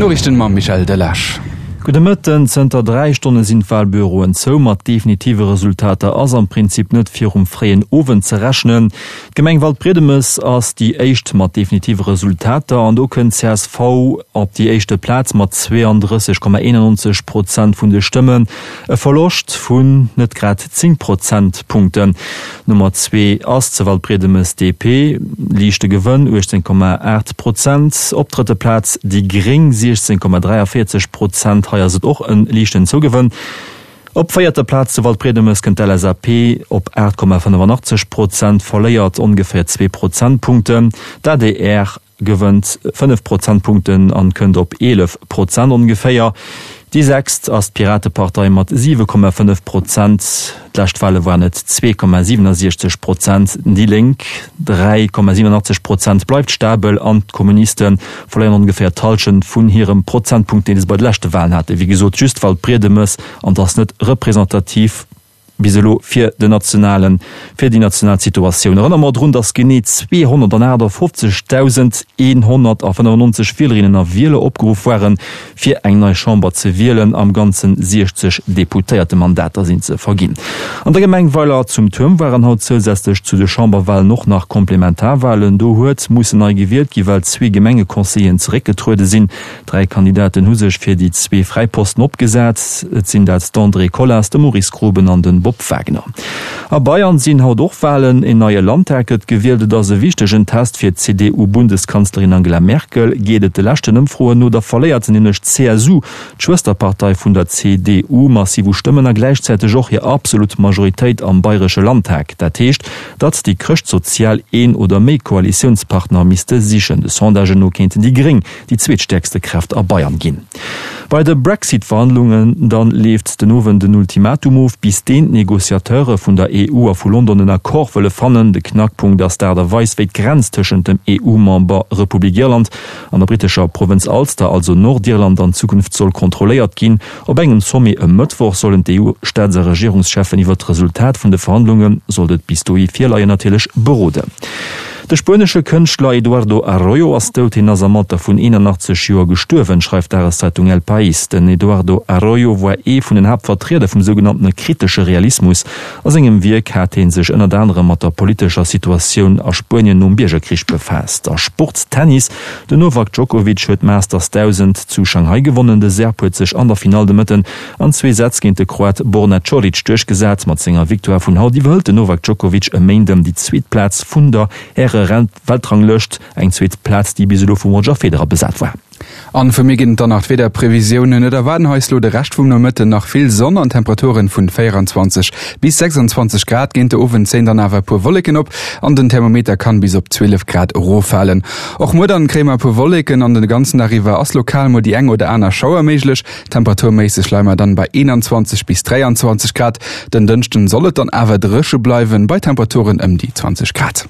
D'Noriichten mam Michel Delage. Gudde Mëtten. Zënter 3 Stonne sinn d'Walbüroen zou. Mat definitive Resultater ass am Prinzip net virum fréien Owend ze rechnen. D'Gemeng Waldbriedemes ass déi éischt mat definitive Resultater an do kënnt csv op déi éischte Plaz mat 32,91 Prozent vun de Stëmmen. E Verloscht vun net grad 10 Prozentpunkten. Nummer zwee ass zu Waldbriedemes DP, liichte Gewënn, 18,8 Prozent. Op drëtte Plaz déi Gréng, 16,43 Prozent, hei ass et och e liichten Zougewënn. Op véierter Plaz zu Waldbriedemes kënnt d'LSAP op 8,85 Prozent, verléiert ongeféier zwee Prozentpunkten. D'adr gewënnt 5 Prozentpunkten an kënnt op 11 Prozent ongeféier. Déi sechst ass d'Piratepartei mat 7,5 Prozent, d'lescht Wale waren et 2,67 Prozent. Déi Lénk, 3,87 Prozent, bleift stabel an d'Kommuniste verléieren ongeféier d'Hallschent vun hirem Prozentpunkt, dee se bei de leschte Walen haten. Wéi gesot, just Waldbriedemes an et ass net representativ. Bis elo fir den nationalen, fir déi national Situatioun. Erënnere mer drun, datt genee 258.195 Wielerinnen a Wieler opgeruff waren, fir eng nei Chamber ze wielen. Am Ganzen 60 Deputéiertemandater sinn ze verginn. An der Gemeng Weiler zum Tuerm waren haut zousätzlech zu de Chamberwalen och nach Komplementarwalen. Do huet mussen nei gewielt gi well zwee Gemengeconseilleren zeréckgetruede sinn. Dräi Kandidaten hu sech fir déi zwee fräi Posten opgesat. Et sinn dat d'Andrée Colas, de Maurice Groben an de Bob Wagner. A Bayern sinn haut och Walen. En neie Landtag gëtt gewielt. Et ass e wichtegen Test fir d'CDU-Bundeskanzlerin Angela Merkel. Geet et de leschten Ëmfroen no, da verléiert se nämlech d'CSU, d'Schwësterpartei vun der CDU, massiv u Stëmmen a gläichzäiteg och hir absolut Majoritéit am bayresche Landtag. Dat heescht, datt déi Chrëschtsozial een oder méi Koalitiounspartner misste sichen. De Sondagen no kéinten déi Gréng déi zweetstäerkste Kraaft a Bayern ginn. Bei de Brexit-Verhandlungen dann leeft den Owend en Ultimatum of, bis deen d'Negociateure vun der EU a vu London en Accord wëlle fannen. De Knackpunkt ass d'Aart a Weis, wéi d'Grenz tëschent dem EU-Member Republik Irland an der brittescher Provënz Ulster, also Nordirland, an Zukunft soll kontrolléiert ginn. Op engem Sommet e Mëttwoch sollen d'EU-Staats a Regierungscheffen iwwer d'Resultat vun de Verhandlungen, sollt et bis dohi virleien, natierlech beroden. De spuenesche Kënschtler Eduardo Arroyo ass dout. Hien ass am Alter vun 81 Joer gestuerwen, schreift d'Dageszeitung El País. Den Eduardo Arroyo war ee vun den Haaptvertrieder vum sougenanntene kritesche Realismus. A sengem Wierk hat hie sech ënnert anerem mat der politescher Situatioun a Spuenien nom Biergerkrich befaasst. A Sport, Tennis, Den Novak Djokovic huet d'Masters 1000 zu Shanghai gewonnen. De Serb huet sech an der Finall de Mëtten an zwee Sätz géint de Kroat Borna Coric duerchgesat. Mat senger Victoire vun haut iwwerhëlt den Novak Djokovic e Méinden déi zweet Plaz vun der Häre-Weltranglëscht, eng zweet Plaz, déi bis elo vum Roger Federer besat war. An vu mir ginn et dann nach d'Wiederprevisiounen. Et erwaarden eis lo de Rescht vum Nomëtten nach vill Sonn an Temperaturen vun 24 bis 26 Grad. Géint de Owend zéien dann awer e puer Wolleken op an den Thermometer kann bis op 12 Grad eroffalen. Och muer dann kréie mer e puer Wolleken an den ganzen Dag iwwer ass lokal mol déi eng oder aner Schauer méiglech. Temperaturméisseg leie mer dann bei 21 bis 23 Grad. Den Dënschden soll et dann awer dréche bleiwen bei Temperaturen ëm déi 20 Grad.